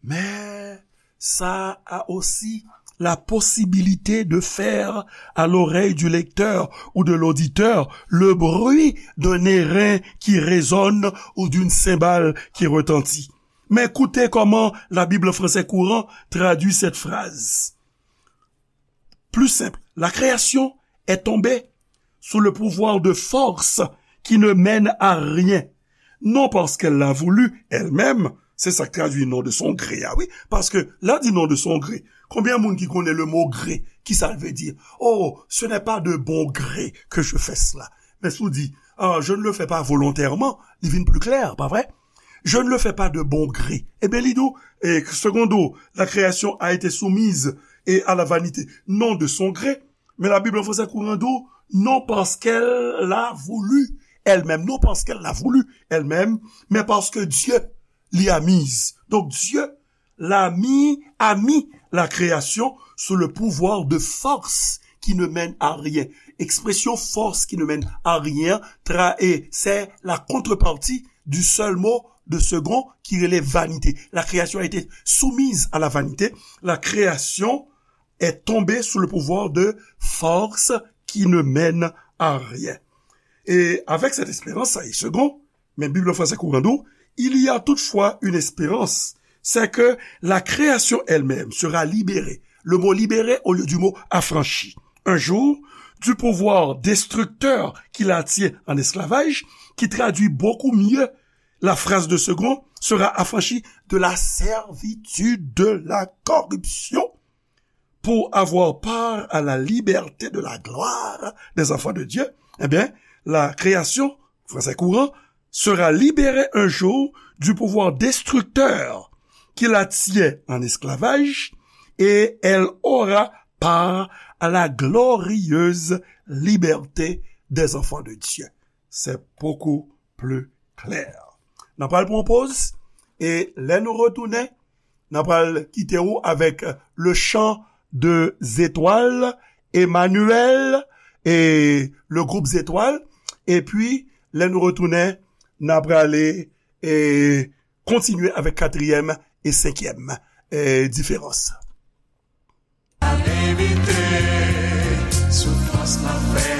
Men, ça a aussi la possibilité de faire à l'oreille du lecteur ou de l'auditeur le bruit d'un airain qui résonne ou d'une cymbale qui retentit. Men koute kòman la Bible en français courant traduit cette phrase. Plus simple, la création est tombée sous le pouvoir de forces qui ne mènent à rien, non parce qu'elle l'a voulu elle-même, se sa k tradui non de son gré a, wi, paske lè di non de son gré, konbyen moun ki konnen le mot gré, ki sa l vle di? Oh, ce n'est pas de bon gré que je fais cela. Men si w di, ah, je ne le fais pas volontairement, li vin pli klè, pa vre? Je ne le fais pas de bon gré. Ebyen, li di w, e, secondo, la création a été soumise et à la vanité, non de son gré. Men la Bib an fransè kouran di w, non parce qu'elle l'a voulu elle-même, non parce qu'elle l'a voulu elle-même, mais parce que Dieu l'y a mise. Donc Dieu l'a mis, a mis la création sous le pouvoir de forces qui ne mènent à rien. Ekspresyon force qui ne mènent à rien, tra, e, c'est la contrepartie du seul mot de second ki rele vanité. La création a été soumise à la vanité. La création est tombée sous le pouvoir de forces qui ne mènent à rien. Et avec cette espérance, ça est second, men Bib an fransè kouran di w, il y a toutefois une espérance, c'est que la création elle-même sera libérée. Le mot libéré au lieu du mot affranchi. Un jour, du pouvoir destructeur qui la tient en esclavage, qui traduit beaucoup mieux la phrase de second, sera affranchie de la servitude de la corruption pour avoir part à la liberté de la gloire des enfants de Dieu, eh bien, la création, français courant, sera libérée un jour du pouvoir destructeur qui la tient en esclavage et elle aura part à la glorieuse liberté des enfants de Dieu. C'est beaucoup plus clair. N ap pral pran yon poz, e lè nou retounen, n ap pral kite w avèk le chant des étoiles, Emmanuel, e le groupe Zetwal. Epi, lè nou retounen, n ap prale, e, kontinye avèk katriyèm e senkyèm, e, diferans. Evite soufrans lanfè.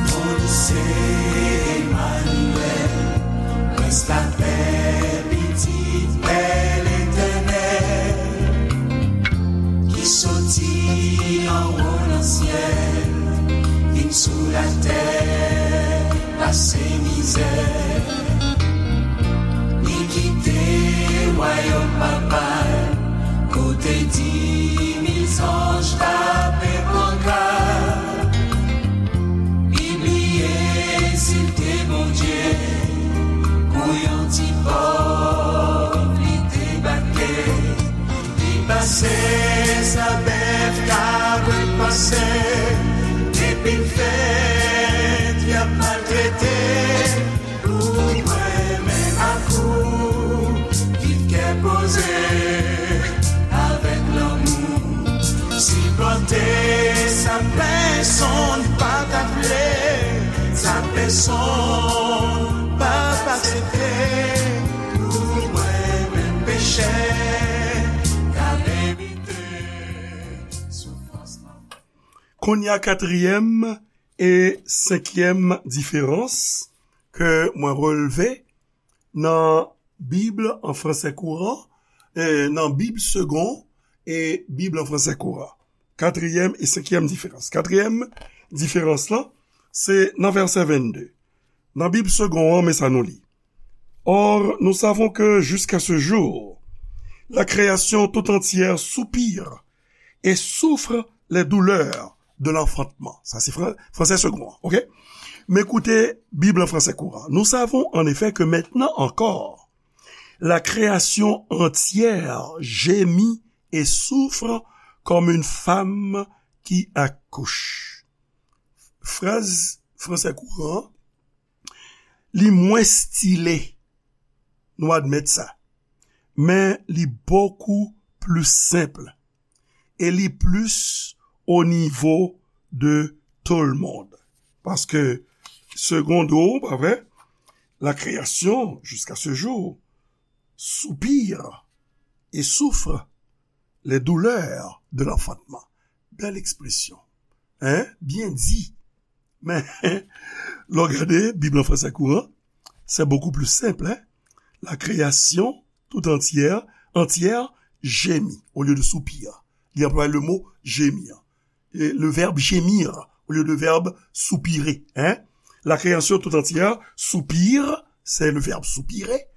Bondye se Emmanuel, Prens lapè, Pitit Pè Letènèl, ki soti anwo nan syèl, vin sou latè, pase mizè. Li kite wayòm Papa l, kote di mil zanj tape pankat. Li bliye si l te Bondye, pou yon ti pòv li debake. Li pase sa bèf, kabrit pase, depi l fèt, y ap maltrete. Pou mwen menm ak ou, viv kè poze, avèk lanmou, sipòte sa pèsonn pa ta vle, sa pèsonn p ap aksepte. Pou mwen menm pechè, k ap evite soufrans lanfè. Kounye a, katriyèm e senkyèm diferans ke mwen relve nan Bib an fransè kouran, e, nan Bib segon e Bib an fransè kouran. Katriyèm e senkyèm diferans. Katriyèm diferans lan, se nan vèsè vennde. Nan Bib segon an, men sa nou li. Or, nous savons que jusqu'à ce jour, la création tout entière soupire et souffre les douleurs de l'enfantement. Sa se fran-, fransè segon an, oke? Men koute Bib an fransè kouran. Nous savons en effet que maintenant encore, la création entière gémit et souffre comme une femme qui accouche. Fraz fransè kouran an, li mwens stile, nou admèt sa, men li bokou pli senp e li plis o nivo de tout le monde. Paske, segon an, pa vre, la création, jusqu'à ce jour, soupire et souffre les douleurs de l'enfantement. Bèl ekspresyon. Hein? Byen di. Men, lè w gade Bib an fransè kouran, c'est beaucoup plus simple, hein? La création tout entière, entière gémit au lieu de soupir. Li anplwaye le mot gémir. Et le verbe gémir au lieu de verbe soupirer, hein? La création tout entière soupire, c'est le verbe soupirer,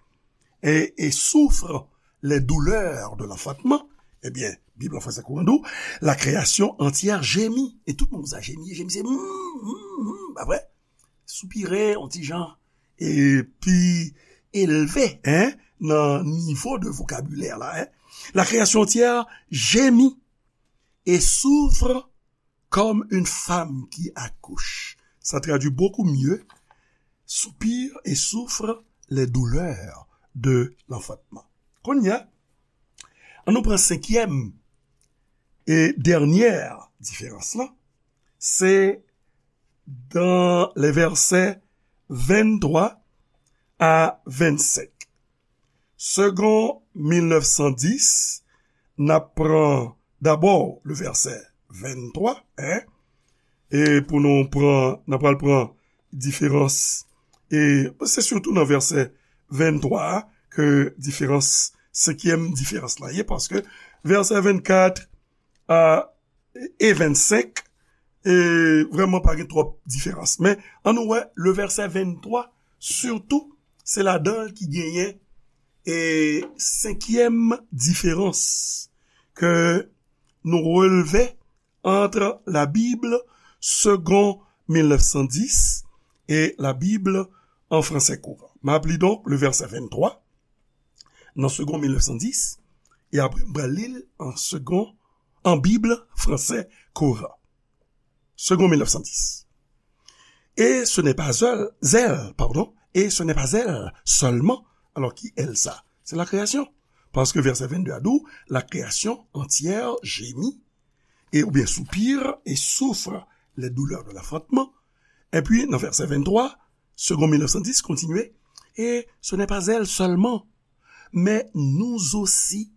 et, et souffre les douleurs de l'enfantement. Ebyen, Bib an fransè kouran di w, la création entière gémit. E tout moun sa jemi, jemi se mm, mm, mm, pa vre? Soupire, yon ti jan, e pi elve, hein, nan nivo de vokabilè la, hein. La création entière gémit et souffre comme une femme qui accouche. Ça traduit beaucoup mieux, soupire et souffre les douleurs de l'enfantement. Kounye a, ann nou pran senkyèm e dènyè diferans lan. Se dans les versets vingt-trois à vingt-cinq. Segond mil nèf san dis, n ap pran dabò le vèsè venntwa, hein, e pou nou pran, n ap pral pran diferans, e se sitou nan vèsè venntwa a ke diferans, senkyèm diferans la ye, paske vèsè vennkat a, e vennsenk, e vrèman pa gen twòp diferans. Men, ann nou wè, le vèsè venntwa, sitou, se ladan l ki genyen, e senkyèm diferans ke nou relve entre la Bible Segond mil nèf san dis et la Bible en français courant. M ap li donk le vèsè venntwa nan Segond mil nèf san dis, e apre m pral li l an Segond, an Bib fransè kouran. Segond mil nèf san dis. Et ce n'est pas elle, elle, pardon, et ce n'est pas elle seulement. Alors, qui elle ça? C'est la création. Parce que verset vingt-deux a dit, la création entière gémit, et, ou bien soupire et souffre les douleurs de l'enfantement. Et puis, dans verset vingt-trois, Segond mil nèf san dis kontinye, et ce n'est pas elle seulement, mais nous aussi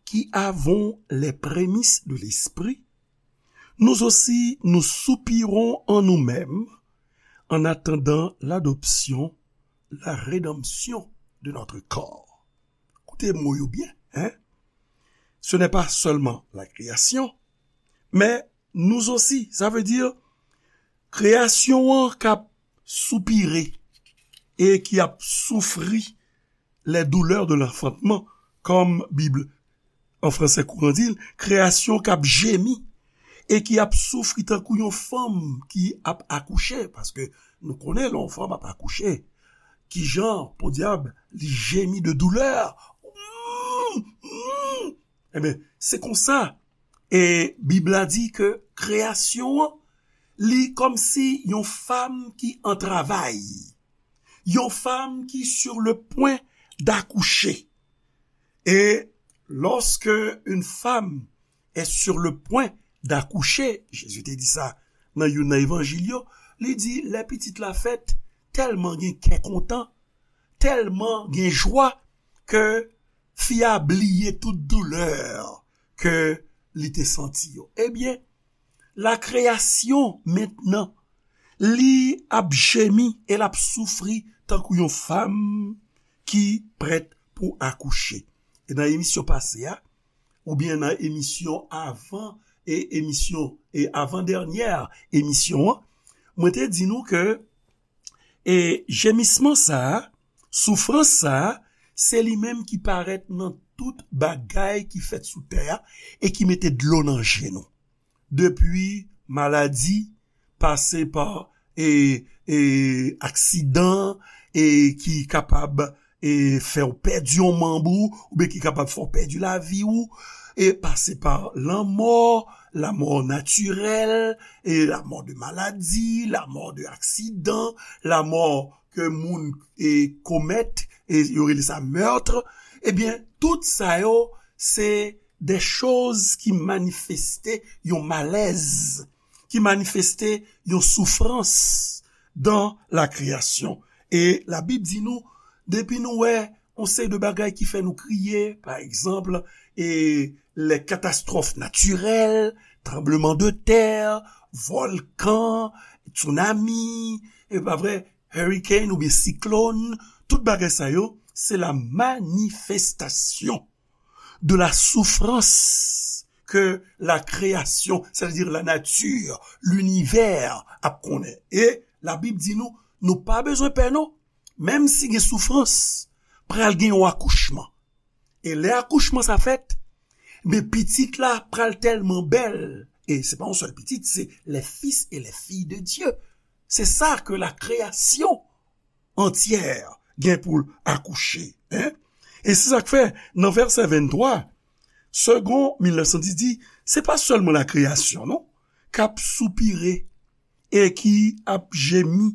qui avons les prémices de l'Esprit, nous aussi nous soupirons en nous-mêmes en attendant l'adoption, la rédemption de notre corps. Koute mo yo byen, hein? Ce n'est pas seulement la création, mais nous aussi. Sa vle di, kreyasyon an k ap soupire e ki ap soufri les douleurs de l'enfantement, kòm Bib an fransè kouran di l, kreyasyon k ap jemi e ki ap soufri tankou yon fanm ki ap akouche, paske nou konnen lè yon fanm ap akouche, kijan, podyab, li jemi de doulè. Mm, mm. Ebyen, se konsa. E Bib la di ke kreyasyon an, li kòmsi yon fanm ki an travay, yon fanm ki sur le point d'accoucher. Et lorsque une femme est sur le point d'accoucher, Jezi te di sa nan youn nan evanjil yo, li di, lè pitit la fèt, tèlman gen kè kontan, tèlman gen jwa, ke fi a bliye tout doulè ke li te santi yo. Ebyen, la kreyasyon mentnan, li ap jemi e l ap soufri tankou yon fanm ki prèt pou akouche. E nan emisyon pase a, oubyen nan emisyon avan, e emisyon, e avan dènyè emisyon an, mwen te di nou ke, e jemisman sa a, soufrans sa a, se li menm ki parèt nan tout bagay ki fèt sou tè a e ki mete dlo nan je nou. Depi maladi, pase pa, e, e, aksidan, e, ki kapab, e, fè w pèdi yon manm ou, oubyen ki kapab fè w pèdi lavi w, e pase pa lanmò, lanmò natirèl, e lanmò de maladi, lanmò de aksidan, lanmò ke moun, e, komèt, e yo rele sa meurtre, ebyen, tout sa yo, se de choz ki manifeste yon malèz, ki manifeste yon soufrans dan la kreyasyon. E Labib di nou, depi nou wè yon seri de bagay ki fè nou kriye, pa egzanp, e, les catastrophes naturelles, tranbleman de tè, vòlkan, tsunami, e pa vre, hurricane oubyen siklòn, tout bagay sa yo, se la manifestasyon de la souffrance que la création, c'est-à-dire la nature, l'univers ap konnen. E Labib di nou, nou pa bezwen pè non, menm si gen soufrans, pral gen yon akouchman. E lè akouchman sa fèt, men pitit la pral tèlman bèl, e se pa yon sèl pitit, se les fils et les filles de Dieu. Se sa ke la création entière gen pou l akouche. Hein? E se sa k fè, nan vèsè venntwa, Segond mil nèf san dis di, se pa sèlman la kreyasyon, non, k ap soupire e ki ap jemi,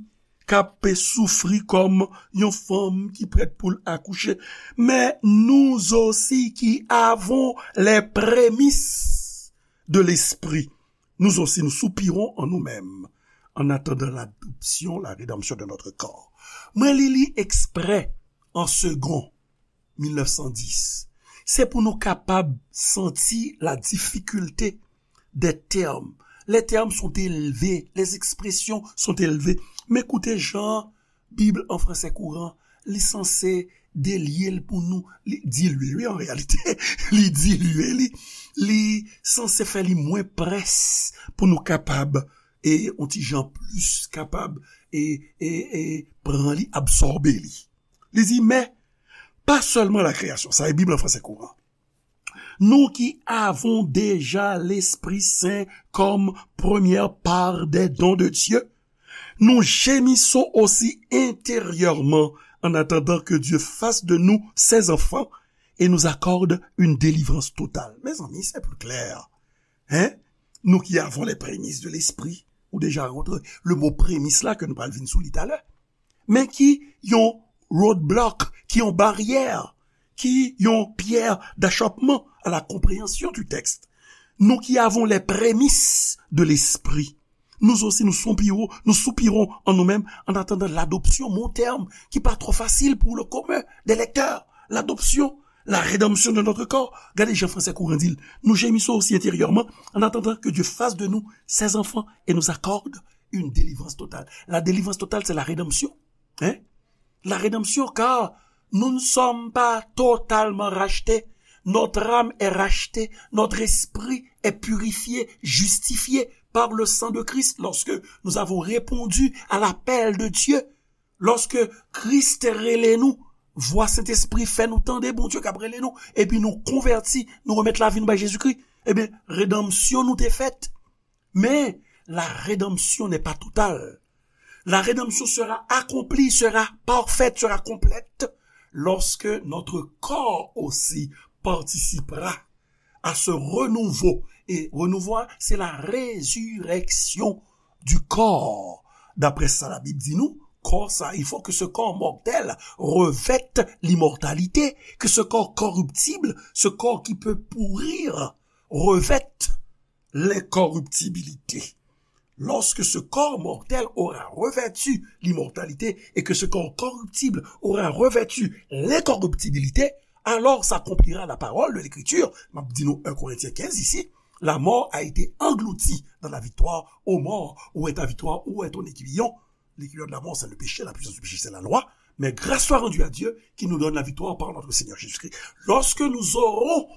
k ap soufri kòm yon fanm ki prèt pou l akouche, men nous aussi qui avons les prémices de l'esprit, nous aussi nous soupirons en nous-mêmes en attendant l'adoption, la rédemption de notre corps. Mwen li li eksprè an segon mil nèf san dis. Se pou nou kapab santi la difficulté des termes. Les termes sont élevés, les expressions sont élevées. Men koute jan Bib an fransè kouran, li sanse delye l pou nou, li dilye, wi, an reyalite, li dilye li, li sanse fè li mwen près pou nou kapab, e, yon ti jan plis kapab, e, e, e, pran li, absòbe li. Li di, men, pa sèlman la création, sa e Bib an fransè kouran. Nous qui avons déjà l'Esprit Saint comme première part des dons de Dieu, nous gémissons aussi intérieurement en attendant que Dieu fasse de nous ses enfants et nous accorde une délivrance totale. Mezanmi, se pli klè. Hein? Nous qui avons les prémices de l'Esprit, ou deja rantre, le mo premis la ke nou pral vin sou li talè. Men ki yon roadblock, ki yon baryè, ki yon pierre d'achoppement à la compréhension du texte. Nous qui avons les prémices de l'esprit, nous aussi nous soupirons, nous soupirons en nous-mêmes en attendant l'adoption, mo tèm ki pa twò fasil pou le commun des lecteurs, l'adoption, la rédemption de notre corps. Gade jan fransè kouran di l, nous gémissons aussi intérieurement en attendant que Dieu fasse de nous ses enfants et nous accorde une délivrance totale. La délivrance totale, c'est la rédemption. Hein? La rédemption, car nous ne sommes pas totalement rachetés. Notre âme est rachetée, notre esprit est purifié, justifié par le sang de Christ lorsque nous avons répondu à l'appel de Dieu. Lorsque Christ rele nou, vwa Sentespri fè nou tande Bondye k ap rele nou, epi nou konvèti, nou remèt lavi nou bay Jezikri, ebyen, redanmsyon nou te fèt. Mais la rédemption n'est pas totale. La rédemption sera accomplie, sera parfaite, sera complète lorsque notre corps aussi participera à ce renouveau. Et renouveau, c'est la résurrection du corps. D'après ça, la Bible dit nous, corps ça, il faut que ce corps mortel revête l'immortalité, que ce corps corruptible, ce corps qui peut pourrir, revête l'incorruptibilité. Lorsque ce corps mortel aura revêtu l'immortalité et que ce corps corruptible aura revêtu l'incorruptibilité, alors s'accomplira la parole de l'Écriture. M ap di nou un Corinthiens quinze ici, la mort a été engloutie dans la victoire. Ô mort, où est ta victoire? Où est ton aiguillon? L'aiguillon de la mort, c'est le péché, la puissance du péché, c'est la loi. Mais grâce soit rendue à Dieu qui nous donne la victoire par notre Seigneur Jésus-Christ. Lorsque nous aurons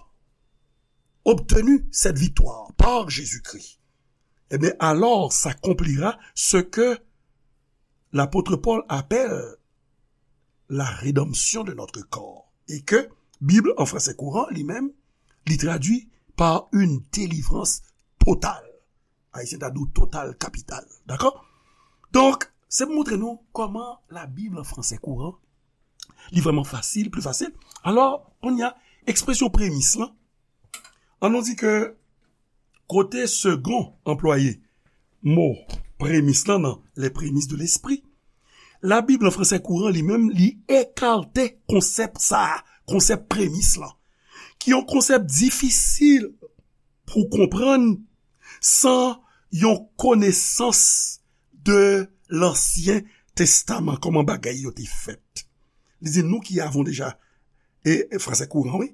obtenu cette victoire par Jésus-Christ, eh bien, alors s'accomplira ce que l'apôtre Paul appelle la rédemption de notre corps. Et que Bible, en français courant, lui-même, li tradui par une délivrance totale. Ayisyen ta di w total kapital. Dakò? Donk, se pou montre nou kòman la Bib an fransè kouran, li vrèman fasil, pli fasil. Alò, kounye a, ekspresyon premis lan, ann nou di ke kote Segond anplwaye mo premis lan nan les prémices de l'esprit, la Bib an fransè kouran li menm, li ekate konsèp sa a, konsèp premis lan, ki yon konsèp difisil pou konprann san yon konesans de Lansyen Testaman, kòman bagay yo te fèt. Li di, nous qui avons déjà e, e fransè kouran, wi,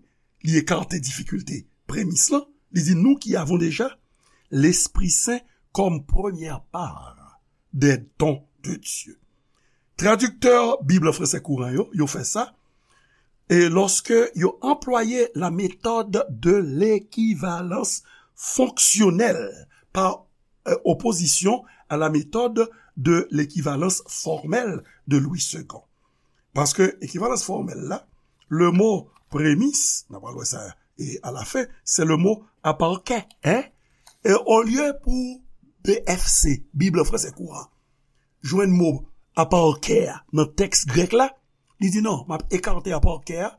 li ekate difikilte premis lan, li di, nous qui avons déjà l'Esprit Saint comme première part des dons de Dieu. Tradiktè Bib fransè kouran yo, yo fè sa, e lòske yo anplwaye la méthode de l'équivalence fonctionnelle par euh, opposition à la méthode de l'équivalence formelle de Louis Segond. Paske ekivalans fòmèl la, le mo premis, n ap pral wè sa e alafen, se le mo aparke, en? E olye pou B F C, Bib fransè kouran, jwenn mo aparke a nan tèks grèk la, li di non, m ap ekate aparke a,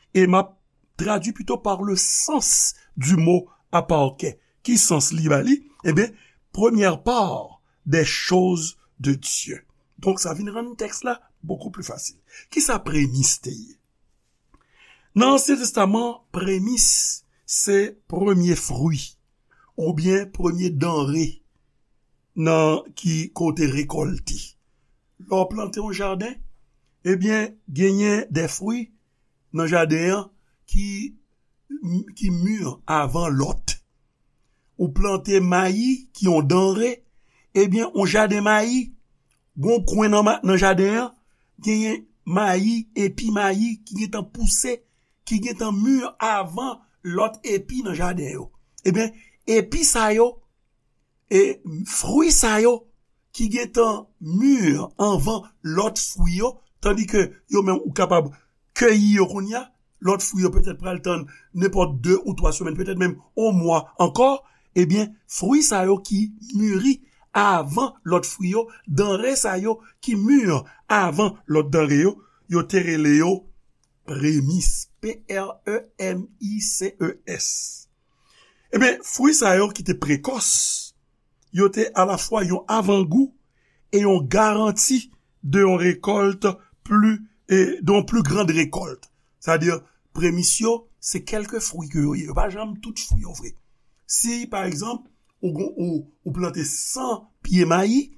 e m ap tradui pito par le sens du mot aparke. Ki sans li ba li? Ebyen, première part des choses de Dieu. Donk, sa vin rann tèks la bokou pli fasil. Kisa premis te ye? Nan Ansyen Testaman, premis se premye fwi oubyen premye danre nan ki kote rekòlte. Lè w plante yon jaden, ebyen, genyen de fwi nan jaden an ki, ki mi avan lòt. Ou plante mayi ki yon danre, ebyen, yon jaden mayi, gon kwen nan, ma- nan jaden an, genyen mayi, epi mayi ki gentan pouse, ki gentan mi avan lòt epi nan jaden yo. Ebyen, epi sa yo, e fwi sa yo ki gentan mi avan lòt fwi yo, tandike yo menm ou kapab keyi yo kounye a, lòt fwi yo petèt pral tann nenpòt de ou twa semèn, petèt menm yon mwa ankò, ebyen, fwi sa yo ki miri avan lòt fwi yo, danre sa yo ki mi avan lòt danre yo, yo te rele yo premis, P R E M I C E S. Ebyen, fwi sa yo ki te prekòs, yo te alafwa yon avangou e yon garanti de yon rekòlt pli, e de yon pli grand rekòlt. Sètadi, premis yo, se kèlke fwi ke yo ye. Yo pa janm tout fwi yo vre. Si, pa egzanp, ou, gon- ou, ou plante san pye mayi,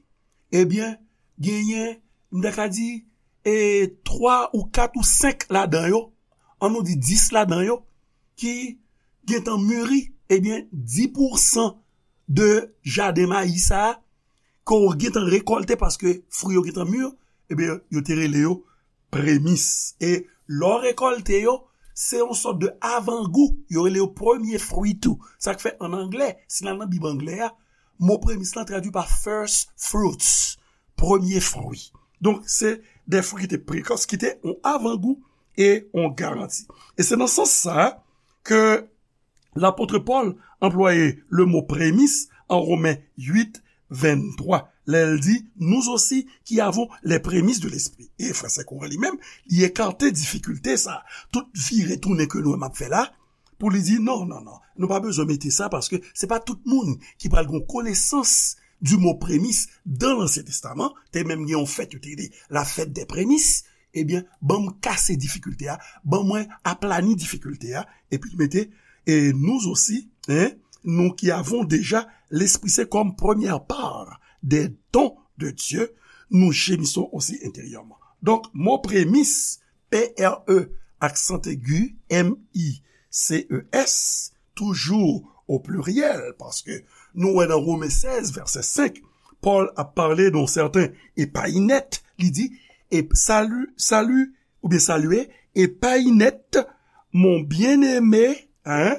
ebyen, genyen, m ta ka di, e twa ou kat ou senk ladan yo, ann nou di dis ladan yo, ki gentan miri, ebyen, dis pousan de jaden mayi sa a, ke w gentan rekòlte paske fwi yo gentan mi, ebyen, yo te rele yo premis. E lè w rekòlte yo, se yon sòt de avangou, yo rele yo premye fwi tou. Sa k fè, an anglè, si n al nan Bib anglè a, mo premis lan tradui pa first fruits, premye fwi. Donk, se de fwi ki te prekòs, ki te yon avangou e yon garanti. E se nan sans sa a ke lapot Pòl anplwaye le mo premis an Women uit venntwa, lè l di, nous aussi qui avons les prémices de l'esprit. E fransè kouran li menm, li ekate difikilte sa. Tout vire tounen ke nou menm ap fè la, pou li di, non, non, non, nou pa bezwen mete sa, paske se pa tout moun ki pral gen konesans du mo premis dan Lansyen Testaman. Te menm gen yon fèt yo te rele la fête des prémices. Ebyen, ban m kase difikilte a, ban mwen aplani difikilte a, epi l mete, et nous aussi, hein, nous qui avons déjà l'Esprit Saint comme première part des dons de Dieu, nous gémissons aussi intérieurement. Donk, mo premis, P R E, aksan egi, M I C E S, toujou o pliryèl, paske nou wè nan Women sèz, vèsè senk, Pòl ap pale de yon sèten Epayinèt, li di, e salut, salut, oubyen saluez Epayinèt, mon bien-aimé, hein,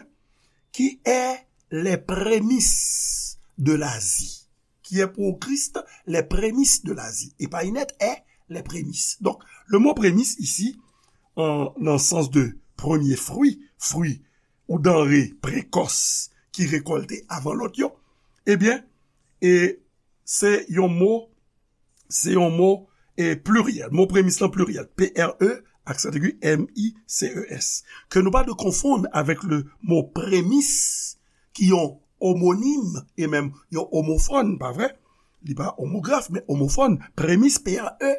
qui est les prémices de la vie. Qui est pour Christ les prémices de la vie. Epayinèt est les prémices. Donk, le mo premis isi, an, nan sans de premye fwi, fwi ou danre prekòs ki rekòlte avan lòt yo, ebyen, e se yon mo, se yon mo, e pliryèl. Mo premis lan pliryèl. P R E, aksan egi, M I C E S. Ke nou pa dwe konfonn avèk le mo premis, ki yon omonim, e menm yon omofòn, pa vre? Li pa omograf, men omofòn. Premis, P R E,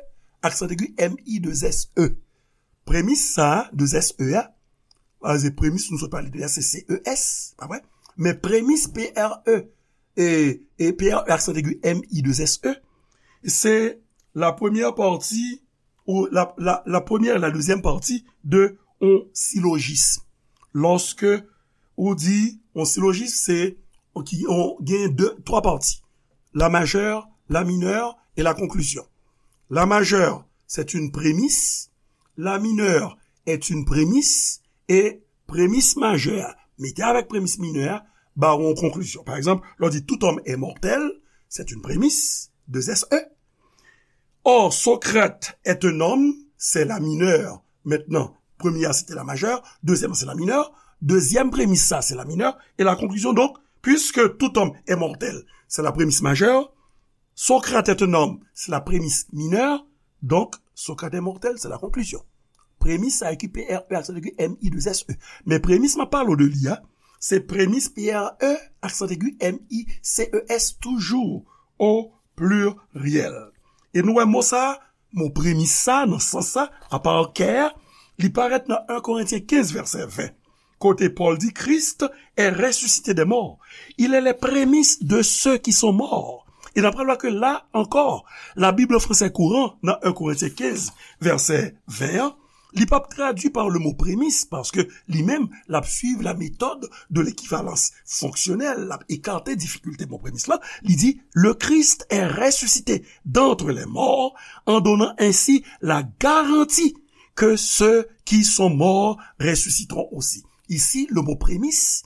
aksan egi, M I de S E. Premis sa a, de S E a, a, se premis nou sot pale de a, se C E S, pa vre? Men premis, P R E, e, e P R E, aksan egi, M I de S E, se la première partie, ou la, la, la première et la deuxième partie de yon silojis. Lòske ou di yon silojis, se ki yon, gen de, twa pati. La majè, la minè e la konklizyon. La majè, c'est une prémisse. La minè est une prémisse. E premis majè a mete avèk premis minè a ba w yon konklizyon. Pa egzanp, lè w di tout homme est mortel, c'est une prémisse, deux S E. Or, Socrate est un homme, c'est la mineure. Mentnan, premye a se te la majè, dezyèm se la minè, dezyèm premis sa se la minè, e la konklisyon donk, puisque tout homme est mortel, c'est la prémisse majeure, Socrate est un homme, c'est la prémisse mineure, donc Socrate est mortel, c'est la conclusion. Premis sa ki P R E aksan egi M I deux S E. Men premis m ap pale w de li a, se premis P R E aksan egi M I C E S toujou o pliryèl. E nou wè mo sa, mo premis sa, nan sans sa, apa kè, li parèt nan en Korentyen kenz vèsè ven. Kote Pòl di, Christ est ressuscité des morts. Il est les prémices de ceux qui sont morts. E n ap pral wè ke la ankò, la Bible en français courant, nan en Korentyen kenz, vèsè ven an, li p ap tradui pa le mo premis, paske li menm, l ap suiv la méthode de l'équivalence fonctionnelle, l ap ekate difikilte mo premis la, li di, le Christ est ressuscité d'entre les morts, en donnant ainsi la garantie que ceux qui sont morts ressusciteront aussi. Ici, le mot prémisse,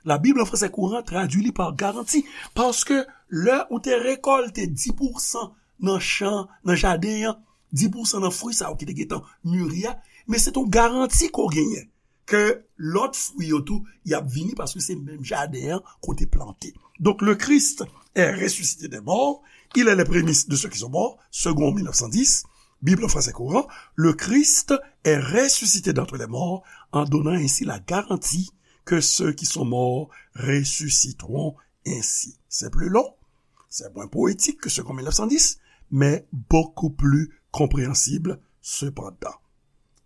la Bible en français courant traduit li par garantie. Paske lè ou te rekòlte dis pousan nan chan, nan jaden an, dis pousan nan fwi sa yo ki te gentan miri a, men se yon garanti ke w genyen ke lòt fwi yo tou, y ap vini paske se menm jaden an ke w te plante. Donc, le Christ est ressuscité des morts, il est les prémices de ceux qui sont morts, Segond mil nèf san dis, Bible en français courant, le Christ est ressuscité d'entre les morts, en donnant ainsi la garantie que ceux qui sont morts ressusciteront ainsi. C'est plus long, c'est moins poétique que Segond mil nèf san dis, mais beaucoup plus compréhensible cependant.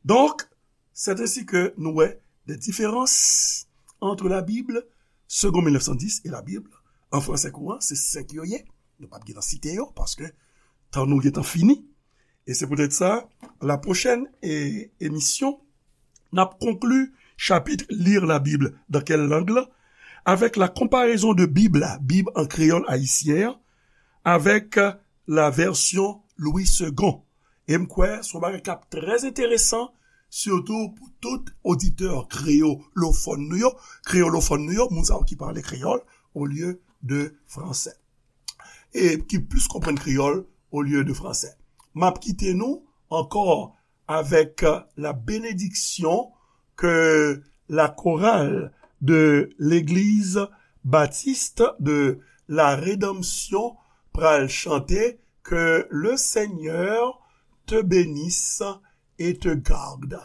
Donc, c'est ainsi que nous voyons des différences entre la Bible, Segond mil nèf san dis, et la Bible en français courant, se senk yo ye. Nou p ap gentan site yo, paske tan nou gentan fini. E se poutèt sa, la pwochèn e, emisyon, n ap konkli chapit Lire la Bible dans quelle langue la, avec la comparaison de Bible la, Bib an kreyòl ayisyen an, avec la version Louis Segond. E m kwè se yon bagay k ap trè enteresan, sitou pou tout oditè kreyolofòn nou yo, kreyolofòn nou yo, moun sa yo ki pale kreyòl olye de fransè. E ki plis konprann kreyòl olye de fransè. M ap kite nou ankò avec la bénédiction que la chorale de l'église baptiste de la Rédemption pral chante, que le Seigneur te bénisse et te garde.